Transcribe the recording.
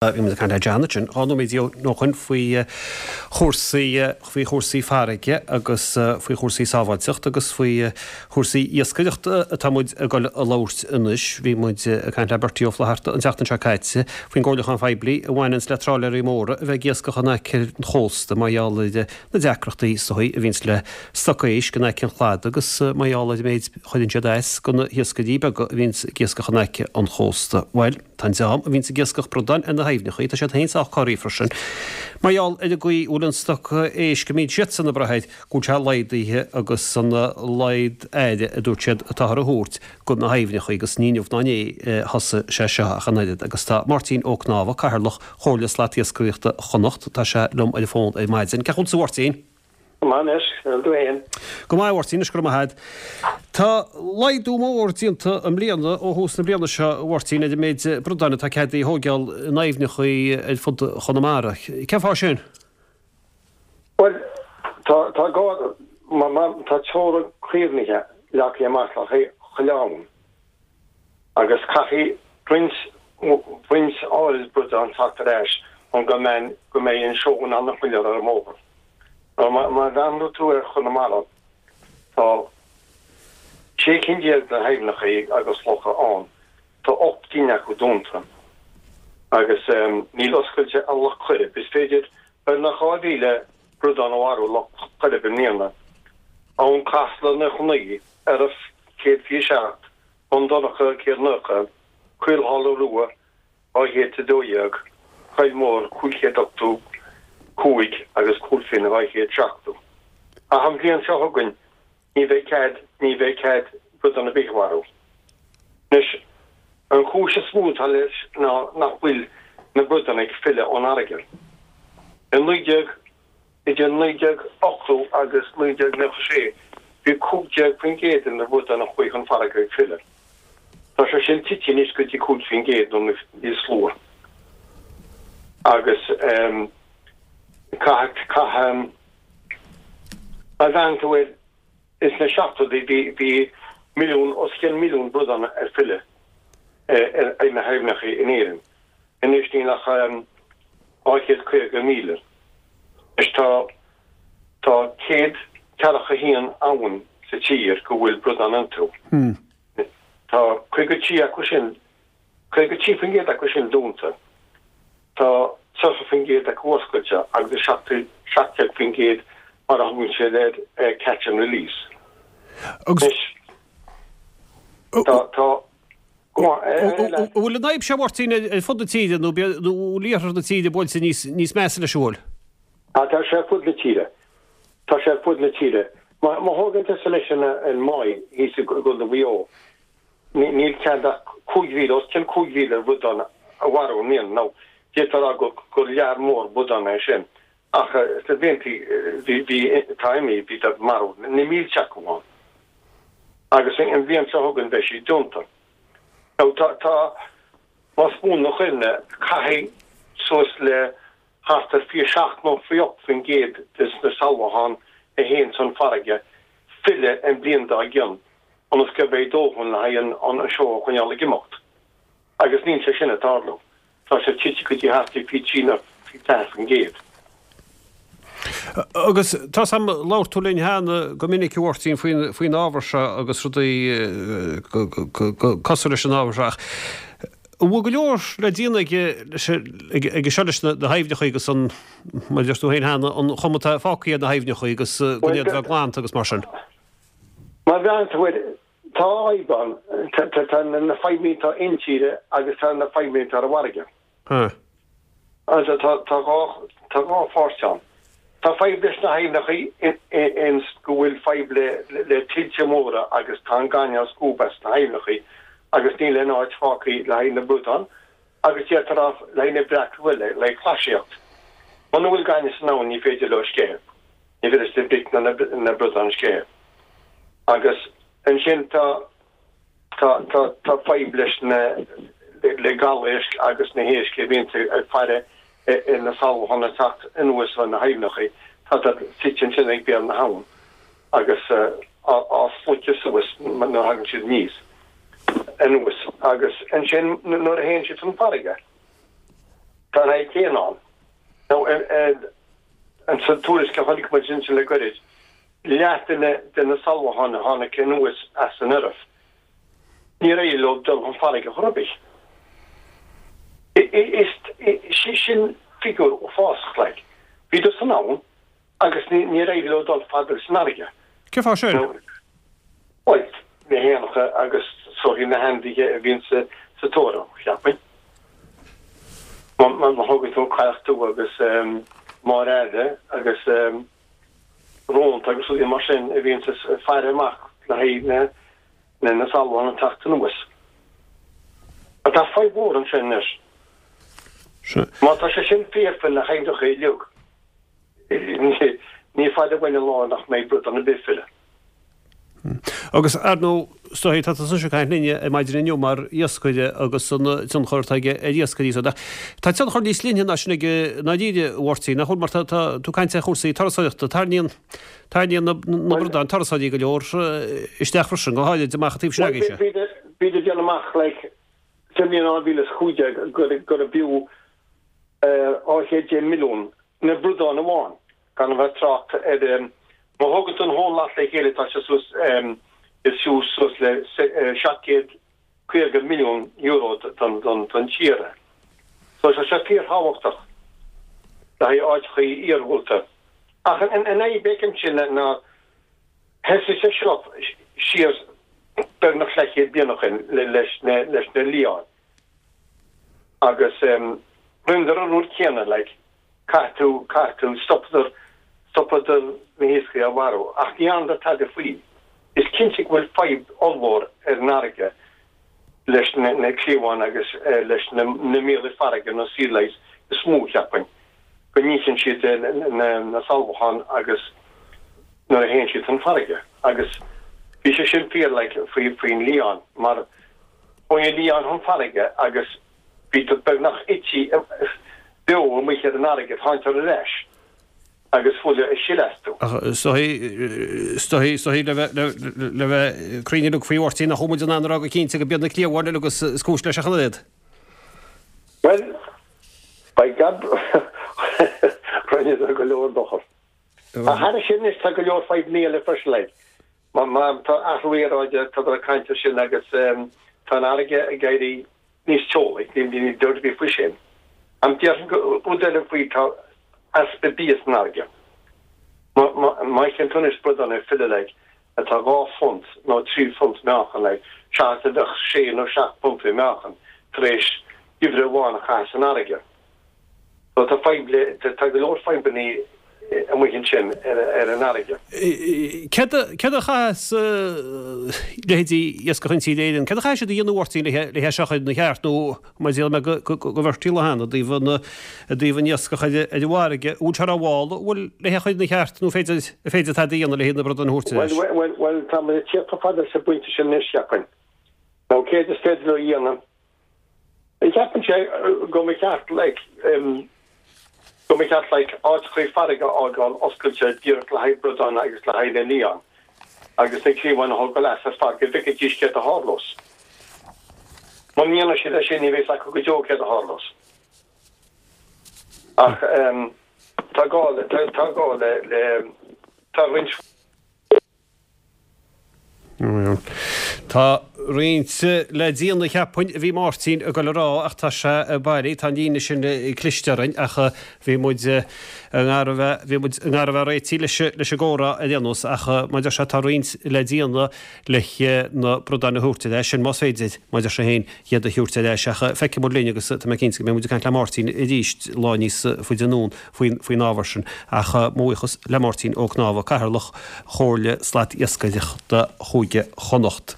Bhí muid ag caint le John ansin 12 nóiméad ó shoin faoi chúrsaí, faoi chúrsaí farraige agus faoi chúrsaí sábháilteacht agus faoi chúrsaí iascaireachta atá muid ag dul a labhairt anois. Bhí muid ag caint le Bertie Ó Flatharta an tseachtain seo caite faoin gcomhairliúchán phoiblí a bhaineanns le trálaeirí móra a bheith ag iascach in aice an chósta mar gheall ar na deacrachtaí is dóigh a bhíonns le stoc éisc in aice an chladaigh agus mar gheall ar an méid a chuireann siad as do na hiascairí beaga a bhíonns ag iascach in aice an chósta. Bhuel. Tá an dream a bhíonns ag iascach bradáin ar na haibhneachaí, tá siad féin sách corraithe freisin, mar gheall ar an gcaoi a bhfuil an stoc éisc a mbíonn siadsan ag brath air, go bhfuil sé laghdaithe agus an laghad aire, a dúirt siad, atáthar a thabhairt do na haibhneachaí agus ní inniu ná inné a thosaigh sé seo ach an oiread. Agus tá Máirtín Ó Cnámha, Cathaoirleach Chomhairle Slatiascaireachta Chonnacht, tá sé liom ar an bhfón ar maidin. Cén chaoi a bhfuil tú a Mháirtín? Go maith anois, an bhfuil tú fhéin? Go maith a Mháirtín, anois go raibh maith a'd. Tá laghdú mór déanta i mbliana ó thús na bliana seo a Mháirtín ar an méid bradáin atá ceadaithe a thóigeáil in aibhneachaí ar fud Chonamara. Cén fáth sin? Bhuel, tá, tá gá, mar, mar, tá teorainn caomhnaithe leagtha amach le haghaidh chuile abhainn agus caithfidh roinnt, roinnt áirid bradán teacht ar ais chun go mbeidh, go mbeidh an seó in ann a choinneáil ar an mbóthar. Má bhreathnaíonn tú ar Chonamara, tá 16 cinn de aibhneacha agus locha ann, tá 8 gcinn acu dúnta agus níl oscailte ach Loch Coirib. Is féidir beagnach 2,000 bradán a mharú i Loch Coirib i mbliana. Abhainn Casla 99, Erriff 127, Bun Dobhráin 190, Caolsháile Rua 212, Coill Mhór 585 agus Cúil Finn 270. Ach an bhliain seo chugainn ní bheidh cead, ní bheidh cead bradán ar bith a mharú. Anois, an chúis is mó atá leis ná nach bhfuil na bradáin ag filleadh ón fharraige. I 19. Idir 1980 agus 1996 bhí 15% de na bradáin a chuaigh chun farraige ag filleadh. Tá sé sin tite anois go dtí 5% nó níos lú. Agus caithfidh, caithfidh, má bhreathnaíonn tú air, ins na seachtóidí bhí, bhí milliún, os cionn milliún bradán ag filleadh ar na haibhneacha in Éirinn. Anois níl ach 250,000. Anois tá tá 141 abhainn sa tír go bhfuil bradáin iontu. Tá 53 acu sin, 53% acu sin dúnta. Tá 30% acu oscailte agus 17% mar a thugann siad air catch and release. Anois tá tá An bhfuil an fhadhb seo, a Mháirtín, ar fud na tíre nó bhfuil iarthar na tíre buailte níos measa leis an bhfuil? Tá sé ar fud na tíre. Tá sé ar fud na tíre. Má thógann tusa leis an Maigh thíos i gContae Mhaigh Eo, níl cead ach 5,000, os cionn 5,000 bhradán a mharú i mbliana. Now, d'fhéadfá a rá gur lear mór bradán é sin, ach sna blianta bhí, atá imithe, bhí ag marú na mílte acu ann. Agus an bhliain seo chugainn beidh sí dúnta. Now tá, tá, más buan mo chuimhne, caithfidh suas le thart ar 27 nó 28% des na sealbhacháin a théann chun farraige filleadh an bhliain dár gcionn ionas go mbeidh dóthain le haghaidh an seó a choinneáil ag imeacht. Agus níl sé sin ag tarlú. Tá sé tite go dtí thart ar 23 nó 24%. Agus tá 's a'm, labhair tú linn cheana go minic a Mháirtín faoin faoin ábhar seo agus rudaí cosúil leis an ábhar seo ach an bhfuil go leor le déanamh aige leis aige seo leis na haibhneacha agus an, mar a deir tú féin cheana, an chuma atá fágtha ar na haibhneacha agus go iad a bheith glanta agus mar sin? Má bhreathnaíonn tú air, tá fadhb ann, tá na fadhbanna atá intíre agus tá na fadhbanna atá ar an bhfarraige. Tá tá dhá pháirt ann. Tá fadhb leis na haibhneacha ins go bhfuil fadhb le le tuilte móra agus tá an gaineamh á scuabadh as na haibhneacha agus níl aon áit fágtha le haghaidh na bradán agus d'fhéadfá a rá le haghaidh na breac le le haghaidh clasaíocht. Muna bhfuil gaineamh san abhainn ní féidir leo sceitheadh. Ní féidir leis na bric ná na bradáin sceitheadh. Agus ansin tá Tá, tá, tá fadhb leis na, le gabhéisc agus na héisc a bhíonns ag faire ar na sealbhacháin ag teacht anuas ó na haibhneacha. Tá siad suite ansin ag béal na habhann agus á sloiceadh suas nuair a thagann siad aníos, anuas. Agus ansin nuair a théann siad chun farraige. Tá an fhadhb chéanna ann. Now, an sa tuairisc a chonaic muid ansin le goirid, leath de na de na salmacháin a tháinig anuas as an Eoraip, níor éirigh leo dul chun farraige chor ar bith. Is sin figiúr uafásach, like. Bhíodar san abhainn agus níor éirigh leo dul fada leis an fharraige. Cén fáth sin? Bhuel, na héanacha agus is dóichí na hainmhithe a bhíonn sa tóir orthu, cheapfainn. Má thógann tú an cailleach dubh agus Máire Aire agus rónta agus rudaí mar sin a bhíonn ag faire amach le haghaidh na salmon ag teacht anuas. Ach tá fadhb mhór ansin anois. Má tá sé sin fíor faoi na haibhneacha uilig, Ní fada uainn an lá nach mbeidh bradán ar bith ag filleadh. Agus, ar ndóigh, is dóichí, tá tusa ag caint linn ar maidin inniu mar iascaire agus an tionchar atá aige ar iascairí so. Tá tionchar níos leithne ná sin aige i ndáiríre, a Mháirtín, nach bhfuil? Mar tá tú ag caint ar chúrsaí turasóireachta. Tarraingíonn, tarraingíonn na bradáin turasóirí go leor isteach freisin, go háirid amach an taobh sin agaibhse. Bhíodar ag déanamh amach, like, sa mbliain 2015 gurbh fhiú 210 milliún na bradáin amháin, gan a bheith ag trácht ar, má thógann tú an whole lot le chéile tá sé suas, is fiú suas le 750 milliún euro don tír é. So tá sé fíorthábhachtach le haghaidh áiteachaí iargúlta. Ach an fhadhb a fheicimse ná thosaigh sé seo siar beagnach leathchéad bliain ó shin leis na liáin. Agus rinneadar an rud céanna, like, caithfidh tú, caithfidh tú, stopadar, stopadar na hiascairí á mharú, ach ní dhearnadar tada faoi. Is cinnte go bhfuil fadhb ollmhór ar an fharraige leis na, na cliabháin agus leis na, na míolaigh farraige, na sea lice is mó, cheapfainn, go n-itheann siad na, na salmacháin agus nuair a théann siad chun farraige. Agus bhí sé sin fíor, like, faoi, faoin lián, mar Chuaigh an lián chun farraige agus bhíodar beagnach ite beo amuigh ar an fharraige, tháingadar ar ais agus fuil ag sileadh astu. Ach is dóichí, is dóichí le bheith, le bheith cruinn uilig faoi Mháirtín, nach bhfuil muid in ann a rá go cinnte go b'iad na cliabháin uilig is cúis leis ach an oiread. Bhuel, by gad, rinneadar go leor dochar. Ach thairis sin anois tá go leor fadhbanna eile freisin, like. Má tá athrú aeráide, tá ag caint air sin agus tá an fharraige ag éirí níos teolaí, níl dabht ar bith faoi sin. Ach déarfainn go rud eile faoi, tá easpa bia san fharraige. Má fheiceann tú anois bradán ag filleadh like atá 2 phunt nó 3 phunt meáchan like seachas a bheadh sé nó seacht bpunt i meáchan tar éis geimhreadh amháin a chaitheamh san fharraige. So tá fadhb le, tá go leor fadhbanna amuigh ansin ar an fharraige. Céard a, céard a chaithfeas leithéidí Iascach Intíre Éireann, céard a chaithfidh siad a dhéanamh a Mháirtín le hé seo a chur ina cheart nó mar a déarfaidh mé go, go, go Bhertie Lehane i dtaobh an, i dtaobh an iascach ar, ar an bhfarraige, an bhfuil sé rómhall, an bhfuil le hé a chur ina cheart nó féidir, an féidir tada a dhéanamh le na bradáin a thabhairt ar ais? Bhuel, bhuel, bhuel, tá muid ag tíocht chomh fada leis an bpointe sin anois, cheapfainn. Nó céard is féidir leo a dhéanamh? Cheapfainnse go mba cheart like go mba cheart like áiteachaí farraige a fhágáil oscailte díreach le haghaidh bradán agus le haghaidh na lián agus na cliabháin a thógáil as ar fad go bhfeicfidís céard a tharlós. Muna ndéanann siad é sin ní bheidh 's acu go deo céard a tharlós. Ach tá gá le tá gá le le tá roinnt Tá roinnt le déanamh cheapfainn, a bhí Máirtín ag dul a rá ach tá sé bailí, tá an líne sin cliste orainn ach bhí muid i ngar a bheith, bhí muid i ngar a bheith réitithe leis, leis an gcomhrá ar aon nós ach mar a deir sé tá roinnt le déanamh le na bradáin a thabhairt ar ais, sin más féidir, mar a deir sé féin, iad a thabhairt ar ais ach feicfidh muid linn agus tá mé cinnte go mbeidh muid ag caint le Máirtín arís lá níos faide anonn. faoin ábhar sin, ach mo bhuíochas le Máirtín Ó Cnámha, Cathaoirleach Chomhairle Slat-Iascaireachta Chúige Chonnacht.